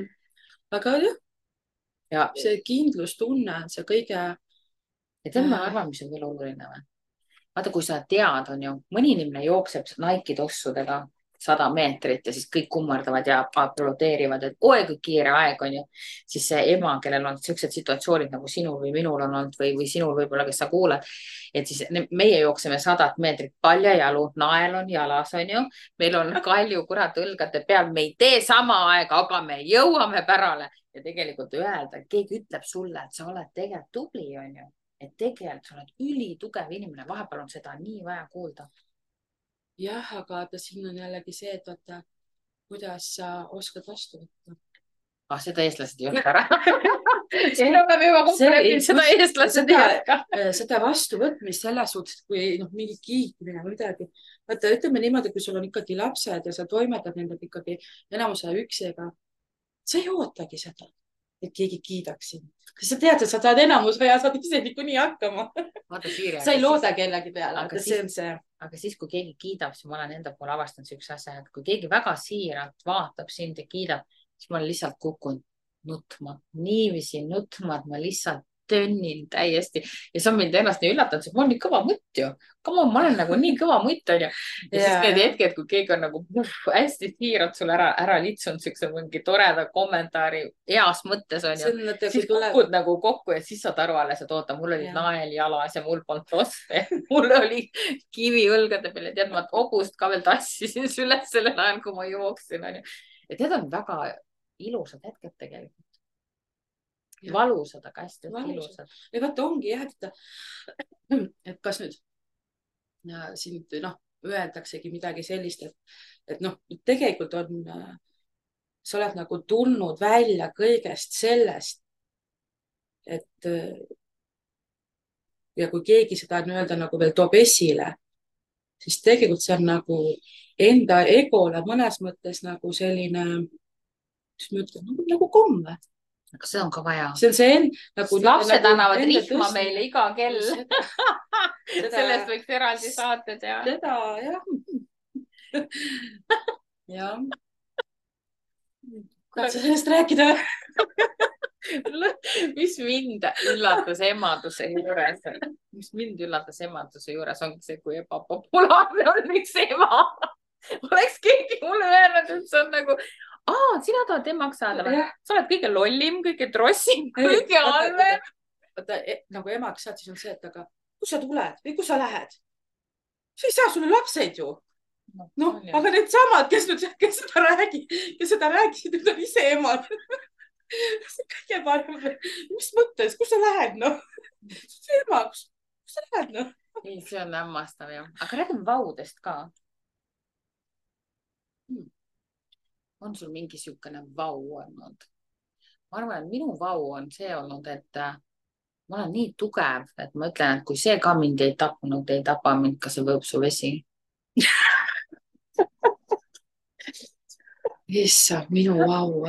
aga jah, see kindlustunne on see kõige. Ja tema arvan, mis on veel oluline või? Vaata, kui sa tead, on ju, mõni inimene jookseb Nike tossudega 100 meetrit ja siis kõik kummardavad ja aplodeerivad, et oi kui kiire aeg on ju. siis see ema, kellel on siuksed situatsioonid nagu sinul või minul on olnud või sinul võib-olla, kes sa kuulad. et siis meie jookseme 100 meetrit paljajalu, nael on jalas, on ju. meil on kalju kurat õlgade peal, me ei tee sama aega, aga me jõuame pärale ja tegelikult öelda, et keegi ütleb sulle, et sa oled tegelikult tubli, on ju. et tegelikult sa oled ülitugev inimene, vahepeal on seda nii vaja kuulda. jah, aga vaata, siin on jällegi see, et vaata, kuidas sa oskad vastu võtta. Seda eestlased ei oska ära. siin oleme juba kokku leppinud, seda eestlased ei oska. seda vastuvõtmist selles suhtes, kui mingi kiitmine või midagi. vaata, ütleme niimoodi, kui sul on ikkagi lapsed ja sa toimetad nendega ikkagi enamuse üksiga, sa ei ootagi seda, et keegi kiidaks sind. sa tead, et sa saad enamus ja saad ise niikuinii hakkama. sa ei looda kellegi peale, aga see on see. Aga siis, kui keegi kiidab, siis ma olen enda poole avastanud siukse asja, et kui keegi väga siiralt vaatab sind ja kiidab, siis ma lihtsalt kukun nutma, niiviisi nutma, et ma lihtsalt tönnin täiesti ja see on mind ennast nii üllatanud, sest ma olen nii kõva mutt ju. Ma olen nagu nii kõva mutt on ju. ja siis need hetked, kui keegi on nagu hästi siiralt sulle ära litsunud siukse mingi toreda kommentaari heas mõttes on ju. siis kukud nagu kokku ja siis saad aru alles, et oota, mul oli nael jalas ja mul polnud tosse. mul oli kivi õlgade peal ja tead, ma hobust ka veel tassisin üles sellel ajal, kui ma jooksin on ju. ja need on väga ilusad hetked tegelikult. Valusad, aga hästi ilusad. ja vaata ongi jah, et kas nüüd siin öeldaksegi midagi sellist, et tegelikult on, sa oled nagu tulnud välja kõigest sellest, et ja kui keegi seda nii-öelda nagu veel toob esile, siis tegelikult see on nagu enda egole mõnes mõttes nagu selline, mis ma ütlen, nagu komme. Aga see on ka vaja. See on see nagu... Lapsed annavad rihma meile iga kell. Sellest võiks eraldi saate teha. Seda, jah. jah. Tahad sa sellest rääkida? Mis mind üllatas emaduse juures? Mis mind üllatas emaduse juures ongi see, kui ebapopulaarne on üks ema. Oleks keegi mulle öelnud, et see on nagu... sina tahad emaks saada või? Sa oled kõige lollim, kõige trossim, kõige halvem. Nagu emaks saad, siis on see, et aga kus sa tuled või kus sa lähed? sa ei saa sulle lapseid ju. Aga need samad, kes seda räägisid, need on ise emad. see on kõige parem. Mis mõttes, kus sa lähed? see ema, kus sa lähed? Ei, see on hämmastav jah. Aga räägime vaudest ka. On sul mingi siukene vau olnud? Ma arvan, et minu vau on see olnud, et ma olen nii tugev, et ma ütlen, et kui see ka mind ei tapnud, ei tapa mind ka see võõpsuvesi. Issand, minu vau.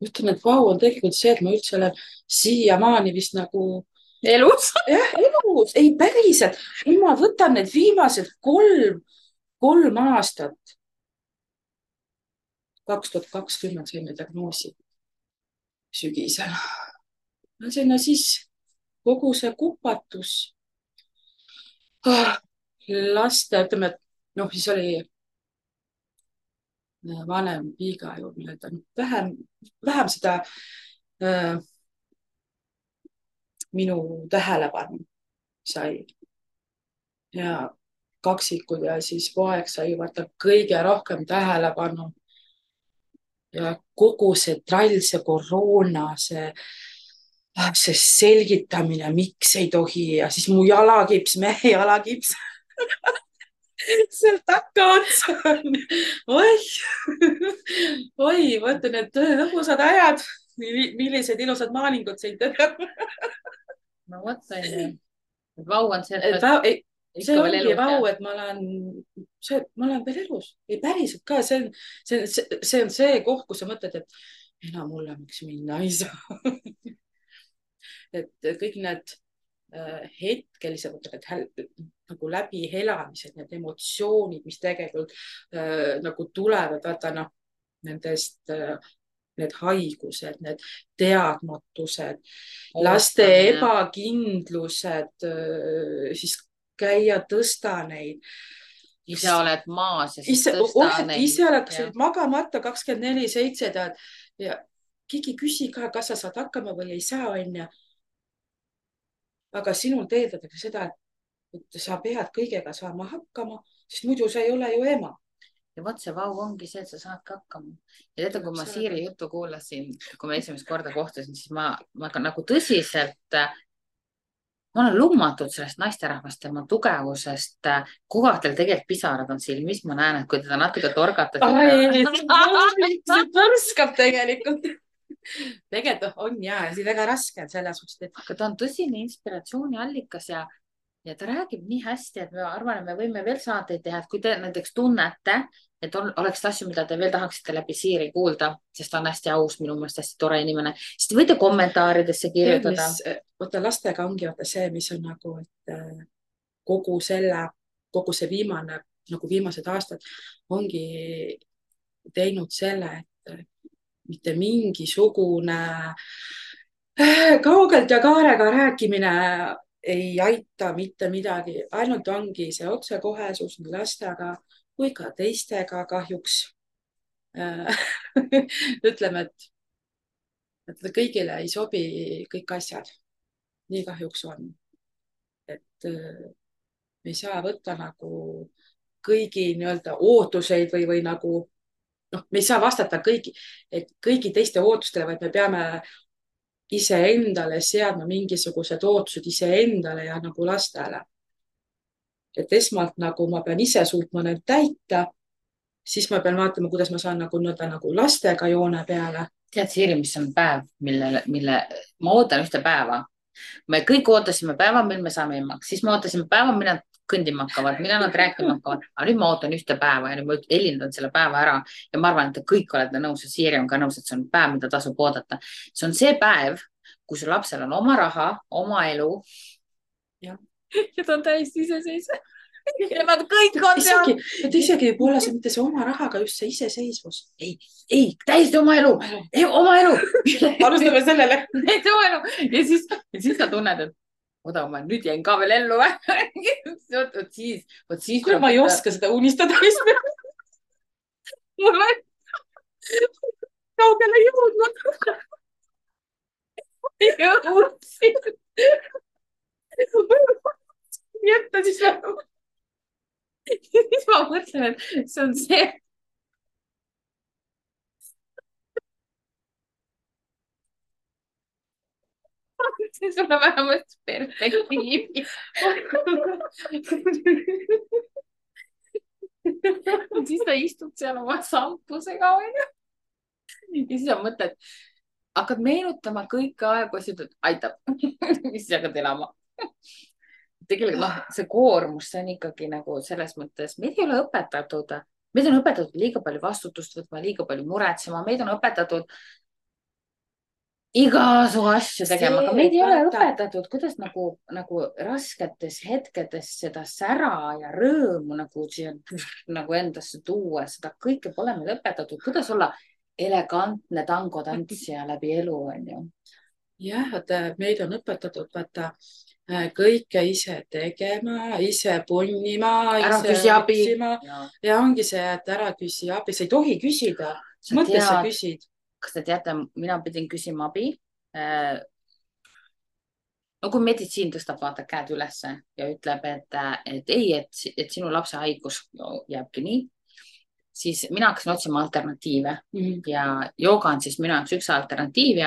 Ütlen, et vau on tegelikult see, et ma üldse olen siiamaani vist nagu... Elus? Jah, elus. Ei, päriselt. Ma võtan need viimased kolm aastat. 2020 saime diagnoosi sügisel. Sinna siis kogu see kupatus. Laste, ütleme, et siis oli vanem piiga ju vähem seda minu tähelepanu sai. Ja kaksikud ja siis poeg sai vaata kõige rohkem tähelepanu. Ja kogu see trall, see koroona, see selgitamine, miks ei tohi ja siis mu jalakips, mehe jalakips. Sealt takka otsa on. Oi, vaata need lõbusad ajad. Millised ilusad maalingud sind teha. No võtta ei. Vau on see, see ongi vau, et ma olen veel elus. Ei päriselt ka, see on see koht, kus sa mõtled, et enam hullemaks minna ei saa. Et kõik need hetkelised nagu läbihelamised, need emotsioonid, mis tegelikult nagu tulevad, vaata nendest need haigused, need teadmatused, laste ebakindlused, siis käia tõsta neid ise oled maas ja siis tõsta oled neid. ise oled magamata 24/7 tead ja keegi küsi ka, kas sa saad hakkama või ei saa, onju. aga sinult eeldatakse seda, et sa pead kõigega saama hakkama, sest muidu sa ei ole ju ema. ja vot see vau ongi see, et sa saadki hakkama. ja teate, kui ma Siiri juttu kuulasin, kui ma esimest korda kohtusin, siis ma ka nagu tõsiselt, ma olen lummatud sellest naisterahvast, tema tugevusest. kogu aeg tal tegelikult pisarad on silmis, ma näen, et kui teda natuke torgatakse. see põrskab tegelikult. tegelikult on ja, see väga raske on selles suhtes, et. aga ta on tõsine inspiratsiooniallikas ja ta räägib nii hästi, et ma arvan, et me võime veel saateid teha, et kui te näiteks tunnete, et oleks asju, mida te veel tahaksite läbi Siiri kuulda, sest ta on hästi aus, minu meelest hästi tore inimene, siis te võite kommentaaridesse kirjutada. Vaata lastega ongi vaata see, mis on nagu, et kogu see viimane, nagu viimased aastad ongi teinud selle, et mitte mingisugune kaugelt ja kaarega rääkimine ei aita mitte midagi, ainult ongi see otsekohesus nii lastega kui ka teistega kahjuks. ütleme, et kõigile ei sobi kõik asjad. nii kahjuks on. et me ei saa võtta nagu kõigi nii-öelda ootuseid või nagu noh, me ei saa vastata kõigi teiste ootustele, vaid me peame iseendale seadma mingisugused ootused iseendale ja nagu lastele. et esmalt nagu ma pean ise suutma need täita, siis ma pean vaatama, kuidas ma saan nagu lastega joone peale. tead, Siiri, mis on päev, mille ma ootan ühte päeva. me kõik ootasime päeva, mil me saame emaks, siis me ootasime päeva, millal nad kõndima hakkavad, millal nad rääkima hakkavad, aga nüüd ma ootan ühte päeva ja nüüd ma helindan selle päeva ära ja ma arvan, et te kõik olete nõus ja Siiri on ka nõus, et see on päev, mida tasub oodata. see on see päev, kui su lapsel on oma raha, oma elu. ja ta on täiesti iseseisev. ja nad kõik on seal. isegi võib olla see mitte see oma rahaga, just see iseseisvus. ei, täiesti oma elu, oma elu. alustame sellele. oma elu ja siis sa tunned, et oda, ma nüüd jäin ka veel ellu. vot siis. kuule, ma ei oska seda unistada. mul on kaugele jõudnud. jõudsin. jätta siis ära. siis ma mõtlen, et see on see. see sulle vähemalt perspektiivi. siis ta istub seal oma sampusega, onju. ja siis sa mõtled, hakkad meenutama kõiki aegusid, et aitab. siis hakkad elama. tegelikult see koormus, see on ikkagi nagu selles mõttes, meid ei ole õpetatud, meid on õpetatud liiga palju vastutust võtma, liiga palju muretsema, meid on õpetatud igasugu asju tegema, aga meid ei ole õpetatud, kuidas nagu rasketes hetkedes seda sära ja rõõmu nagu endasse tuua, seda kõike pole meil õpetatud, kuidas olla elegantne tangotantsija läbi elu, onju. jah, vaata, meid on õpetatud, vaata, kõike ise tegema, ise punnima, ise otsima ja ongi see, et ära küsi abi, sa ei tohi küsida, mõttes sa küsid. Kas te teate, mina pidin küsima abi. no kui meditsiin tõstab, vaata käed ülesse ja ütleb, et ei, et sinu lapse haigus jääbki nii, siis mina hakkasin otsima alternatiive ja jooga on siis minu jaoks üks alternatiiv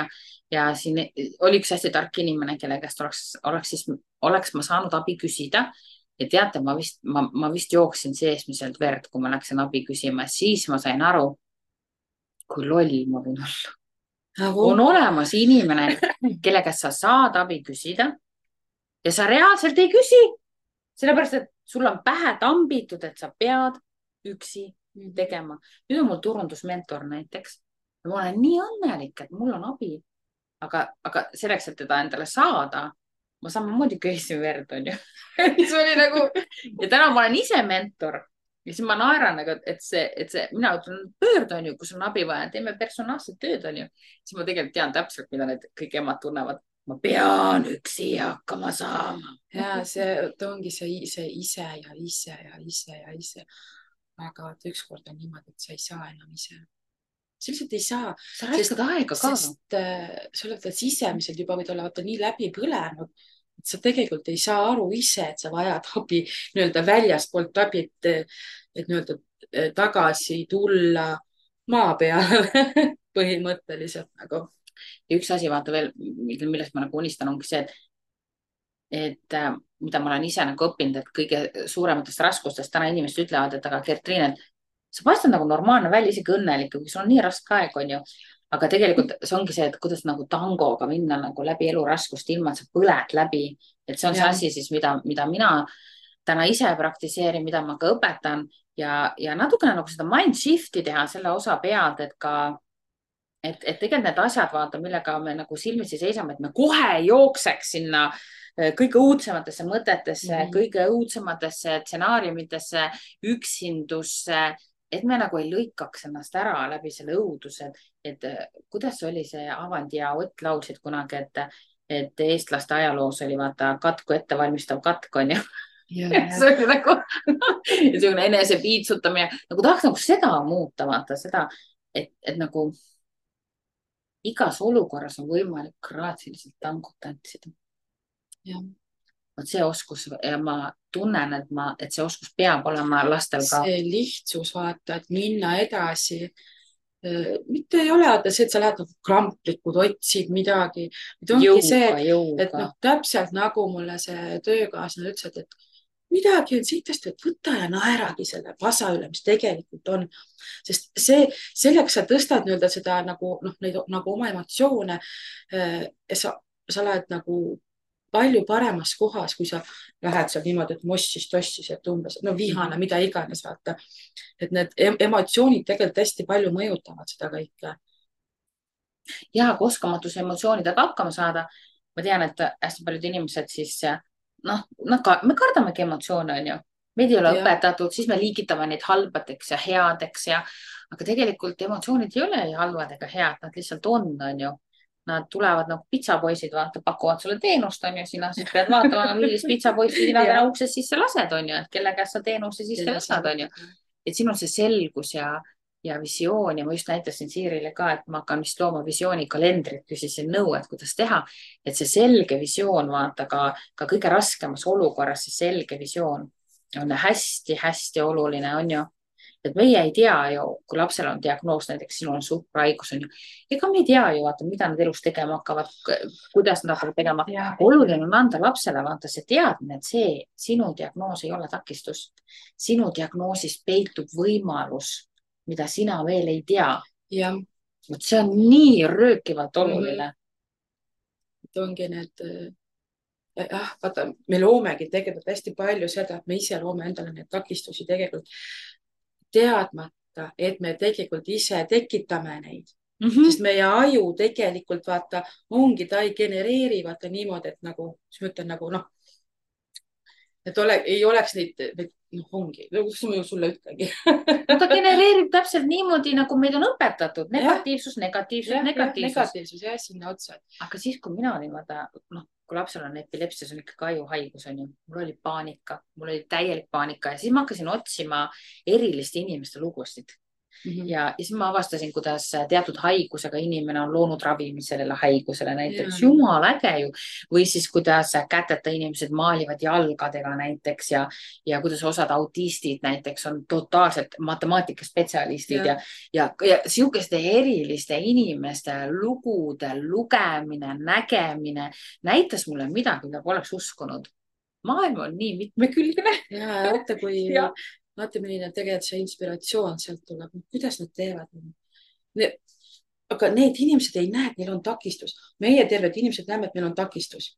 ja siin oli üks hästi tark inimene, kelle käest oleks ma saanud abi küsida. ja teate, ma vist jooksin seesmiselt verd, kui ma läksin abi küsima, siis ma sain aru, kui loll ma võin olla. on olemas inimene, kelle käest sa saad abi küsida ja sa reaalselt ei küsi, sellepärast et sul on pähe tambitud, et sa pead üksi tegema. nüüd on mul turundusmentor näiteks ja ma olen nii õnnelik, et mul on abi, aga selleks, et teda endale saada, ma samamoodi köisin verd, on ju. see oli nagu ja täna ma olen ise mentor. Ja siis ma naeran, et see, mina ütlen, pöördu on ju, kus on abi vaja, teeme personaalset tööd on ju. Siis ma tegelikult tean täpselt, mida need kõik emad tunnevad. ma pean üksi hakkama saama. ja ta ongi see ise ja ise ja ise ja ise. aga ükskord on niimoodi, et sa ei saa enam ise. sa lihtsalt ei saa. sa raiskad aega ka. sest sa oled sisemiselt juba võid olla vaata nii läbi põlenud, et sa tegelikult ei saa aru ise, et sa vajad abi nii-öelda väljastpoolt abi, et nii-öelda tagasi tulla maa peale põhimõtteliselt nagu. ja üks asi, vaata veel, millest ma nagu unistan, ongi see, et mida ma olen ise nagu õppinud, et kõige suurematest raskustest täna inimesed ütlevad, et aga Gertriin, et sa paistad nagu normaalne välja, isegi õnnelik, kui sul on nii raske aeg, on ju. aga tegelikult see ongi see, et kuidas nagu tangoga minna nagu läbi elu raskust, ilma et sa põled läbi. et see on see asi siis, mida mina täna ise praktiseerin, mida ma ka õpetan ja natukene nagu seda mind shift'i teha selle osa pealt, et ka et tegelikult need asjad, vaata, millega me nagu silmitsi seisame, et me kohe ei jookseks sinna kõige õudsematesse mõtetesse, kõige õudsematesse stsenaariumitesse, üksindusse, et me nagu ei lõikaks ennast ära läbi selle õuduse, et kuidas oli see Avandi ja Ott laulsid kunagi, et eestlaste ajaloos oli vaata katku ettevalmistav katk, on ju. see oli nagu niisugune enese piitsutamine, nagu tahaks nagu seda muuta, vaata seda, et nagu igas olukorras on võimalik graatsiliselt tangut tantsida. vot see oskus ja ma tunnen, et see oskus peab olema lastel ka. see lihtsus, vaata, et minna edasi. mitte ei ole see, et sa lähed nagu kramplikud, otsid midagi. et noh, täpselt nagu mulle see töökaaslane ütles, et midagi on siitast, et võta ja naeragi selle pasa üle, mis tegelikult on. sest selleks sa tõstad nii-öelda seda nagu, noh, neid nagu oma emotsioone. sa oled nagu palju paremas kohas, kui sa lähed seal niimoodi, et mossis-tossis, et umbes, no vihane, mida iganes, vaata. et need emotsioonid tegelikult hästi palju mõjutavad seda kõike. ja, kui oskamatus emotsioonidega hakkama saada. Ma tean, et hästi paljud inimesed siis, noh, me kardamegi emotsioone, on ju. Meid ei ole õpetatud, siis me liigitame neid halbadeks ja headeks aga tegelikult emotsioonid ei ole ei halvad ega head, nad lihtsalt on ju. Nad tulevad nagu pitsapoisid, vaata, pakuvad sulle teenust, on ju, sina siis pead vaatama, millist pitsapoissi sina täna uksest sisse lased, on ju, et kelle käest sa teenuse sisse lased, on ju. Et siin on see selgus ja visioon ja ma just näitasin Siirile ka, et ma hakkan vist looma visioonikalendrit, küsisin nõu, et kuidas teha, et see selge visioon, vaata ka kõige raskemas olukorras, see selge visioon on hästi-hästi oluline, on ju. Et meie ei tea ju, kui lapsel on diagnoos, näiteks sinul on suhkrahaigus, on ju. Ega me ei tea ju, vaata, mida nad elus tegema hakkavad, kuidas nad hakkavad tegema. Oluline on anda lapsele, vaata, see teadmine, et see sinu diagnoos ei ole takistus. Sinu diagnoosis peitub võimalus, mida sina veel ei tea. See on nii röökivalt oluline. Et ongi need, vaata, me loomegi tegelikult hästi palju seda, et me ise loome endale need takistusi tegelikult teadmata, et me tegelikult ise tekitame neid. Sest meie aju tegelikult, vaata, ongi, ta ei genereeri, vaata niimoodi, et nagu, mis ma ütlen, nagu noh, et ei oleks neid, ongi, kus ma ju sulle ütlengi. Ta genereerib täpselt niimoodi, nagu meid on õpetatud. Negatiivsus, negatiivsus. Jah, sinna otsa. Aga siis, kui mina olin, vaata, noh, kui lapsel on epilepsia, see on ikka ajuhaigus, on ju. Mul oli paanika, mul oli täielik paanika ja siis ma hakkasin otsima eriliste inimeste lugusid. Ja siis ma avastasin, kuidas teatud haigusega inimene on loonud ravimi sellele haigusele näiteks. Jumal äge ju. Või siis, kuidas käteta inimesed maalivad jalgadega näiteks ja kuidas osad autistid näiteks on totaalselt matemaatikaspetsialistid ja sihukeste eriliste inimeste lugude lugemine, nägemine näitas mulle midagi, mida poleks uskunud. Maailm on nii mitmekülgne. Ja vaata, kui vaata, milline tegelikult see inspiratsioon sealt tuleb. Kuidas nad teevad? Aga need inimesed ei näe, et neil on takistus. Meie terved inimesed näeme, et meil on takistus.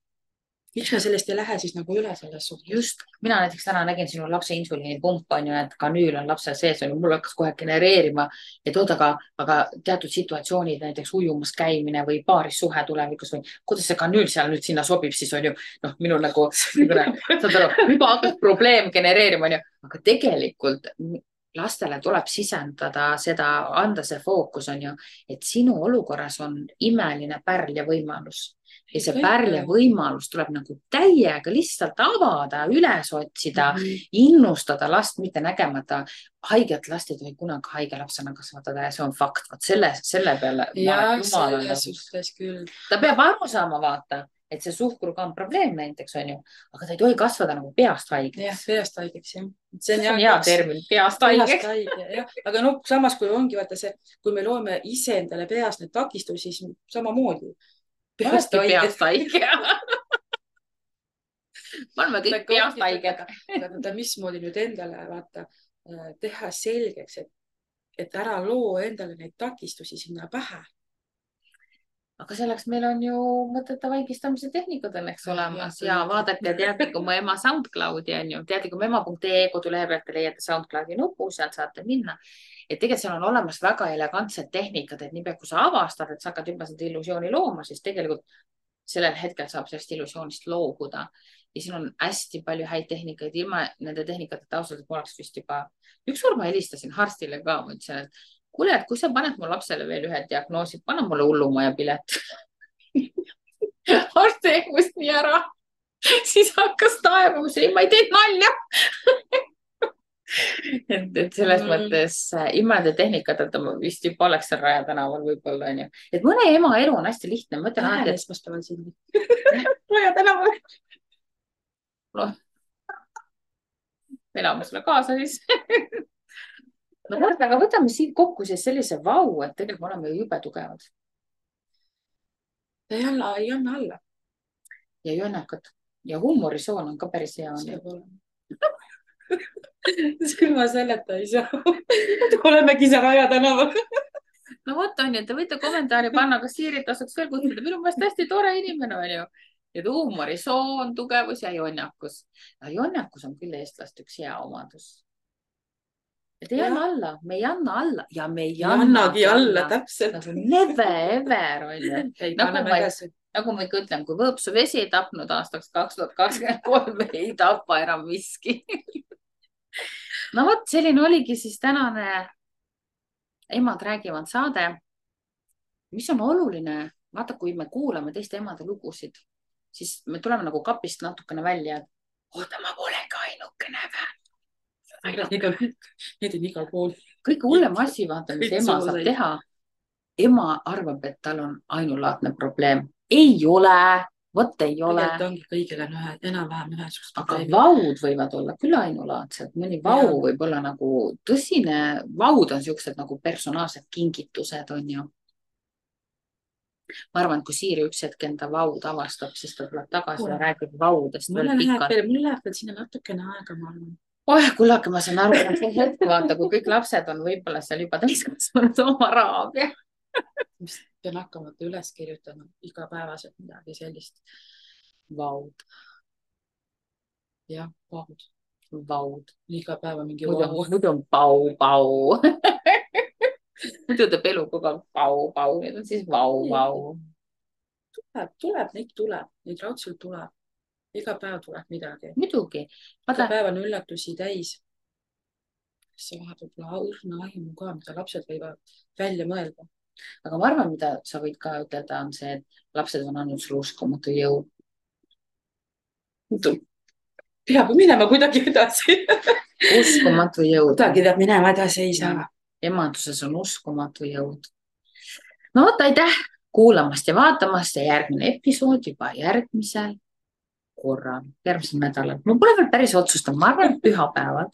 Miks me sellest ei lähe siis nagu üle selles suhtes? Just, mina näiteks täna nägin sinu lapse insuliinipump on ju, et kanüül on lapsel sees, on ju, mul hakkas kohe genereerima, et oota, aga teatud situatsioonid, näiteks ujumas käimine või paaris suhe tulevikus või kuidas see kanüül seal nüüd sinna sobib, siis on ju, noh, minul nagu, saad aru, juba hakkas probleem genereerima, on ju, aga tegelikult lastele tuleb sisendada seda, anda see fookus, on ju, et sinu olukorras on imeline pärl ja võimalus. ja see pärle võimalus tuleb nagu täiega lihtsalt avada, üles otsida, innustada last, mitte nägemata. Haiget last ei tohi kunagi haige lapsena kasvatada ja see on fakt. Vot selle peale. Ja selles suhtes küll. Ta peab aru saama, vaata, et see suhkruga on probleem näiteks, on ju, aga ta ei tohi kasvada nagu peast haigeks. Jah, peast haigeks, jah. See on hea termin, peast haigeks. Aga no samas, kui ongi vaata see, kui me loome ise endale peast need takistusi, siis samamoodi. Peast haige. Ma oleme kõik peast haiged. Mismoodi nüüd endale vaata teha selgeks, et ära loo endale neid takistusi sinna pähe. Aga selleks meil on ju mõtete vaigistamise tehnikud õnneks olemas ja vaadake Teadlikum ema SoundCloudi on ju, teadlikumema.ee kodulehe pealt te leiate SoundCloudi nupu, sealt saate minna. Et tegelikult seal on olemas väga elegantsed tehnikad, et niipea kui sa avastad, et sa hakkad juba seda illusiooni looma, siis tegelikult sellel hetkel saab sellest illusioonist loobuda. Ja siin on hästi palju häid tehnikaid, ilma nende tehnikateta ausalt, et ma oleks vist juba ükskord ma helistasin Harstile ka, ma ütlesin, et kuule, et kui sa paned mu lapsele veel ühe diagnoosi, pane mulle hullumaja pilet. Arst teeb must nii ära. Siis hakkas taevama, ma ei teinud nalja. et selles mõttes ilma nende tehnikateta ma vist juba oleks seal Raja tänaval võib-olla on ju. Et mõne ema elu on hästi lihtne. Lähen esmaspäeval sinna. Raja tänaval. Elame sulle kaasa siis. No aga võtame siit kokku siis sellise vau, et tegelikult me oleme jube tugevad. Ei anna alla. Ja jonnakad. Ja huumorisoon on ka päris hea. See ilma selleta ei saa. Olemegi see Raja tänaval. No võt on ju, te võite kommentaari panna, kas Siirit tasuks veel kutsuda. Minu meelest hästi tore inimene on ju. Et huumorisoon, tugevus ja jonnakus. Ja jonnakus on küll eestlast üks hea omadus. Et ei anna alla, me ei anna alla ja me ei annagi alla, täpselt. Nagu never ever on ju. Nagu ma ikka ütlen, kui Võõpsu vesi ei tapnud aastaks 2023, ei tapa enam miski. No võt, selline oligi siis tänane Emad räägivad saade. Mis on oluline, vaata, kui me kuulame teiste emade lugusid, siis me tuleme nagu kapist natukene välja, et oota, ma polegi ainukene vä. Need on igal pool. Kõige hullem asi, vaata, mis ema saab teha. Ema arvab, et tal on ainulaadne probleem. Ei ole, võt ei ole. Tegelikult ongi kõigil on enam-vähem ühesugust probleemi. Aga vaud võivad olla küll ainulaadsed. Mõni vau võib olla nagu tõsine. Vaud on siuksed nagu personaalsed kingitused, on ju. Ma arvan, et kui Siiri üks hetk enda vaud avastab, siis ta tuleb tagasi ja räägib vaudest. Mul läheb veel sinna natukene aega, ma arvan. Kullake, ma saan aru, et see hetk vaata, kui kõik lapsed on võib-olla seal juba täiskasvanud oma raabia. Pean hakkama üles kirjutama igapäevaselt midagi sellist. Vaud. Jah, vaud. Vaud. Iga päeva mingi vaud. Muidu on pau. Muidu teeb elu kogu aeg pau. Need on siis vau. Neid raudselt tuleb. Iga päev tuleb midagi. Muidugi. Iga päev on üllatusi täis. See vahepeal pole õrna aimu ka, mida lapsed võivad välja mõelda. Aga ma arvan, mida sa võid ka ütelda, on see, et lapsed on andnud sulle uskumatu jõud. Peab minema kuidagi edasi. Uskumatu jõud. Kuidagi peab minema edasi, ei saa. Emanduses on uskumatu jõud. No võtta, aitäh kuulamast ja vaatamast ja järgmine episood juba järgmisel korral, järgmisel nädalal. Ma pole veel päris otsustanud, ma arvan, pühapäevad.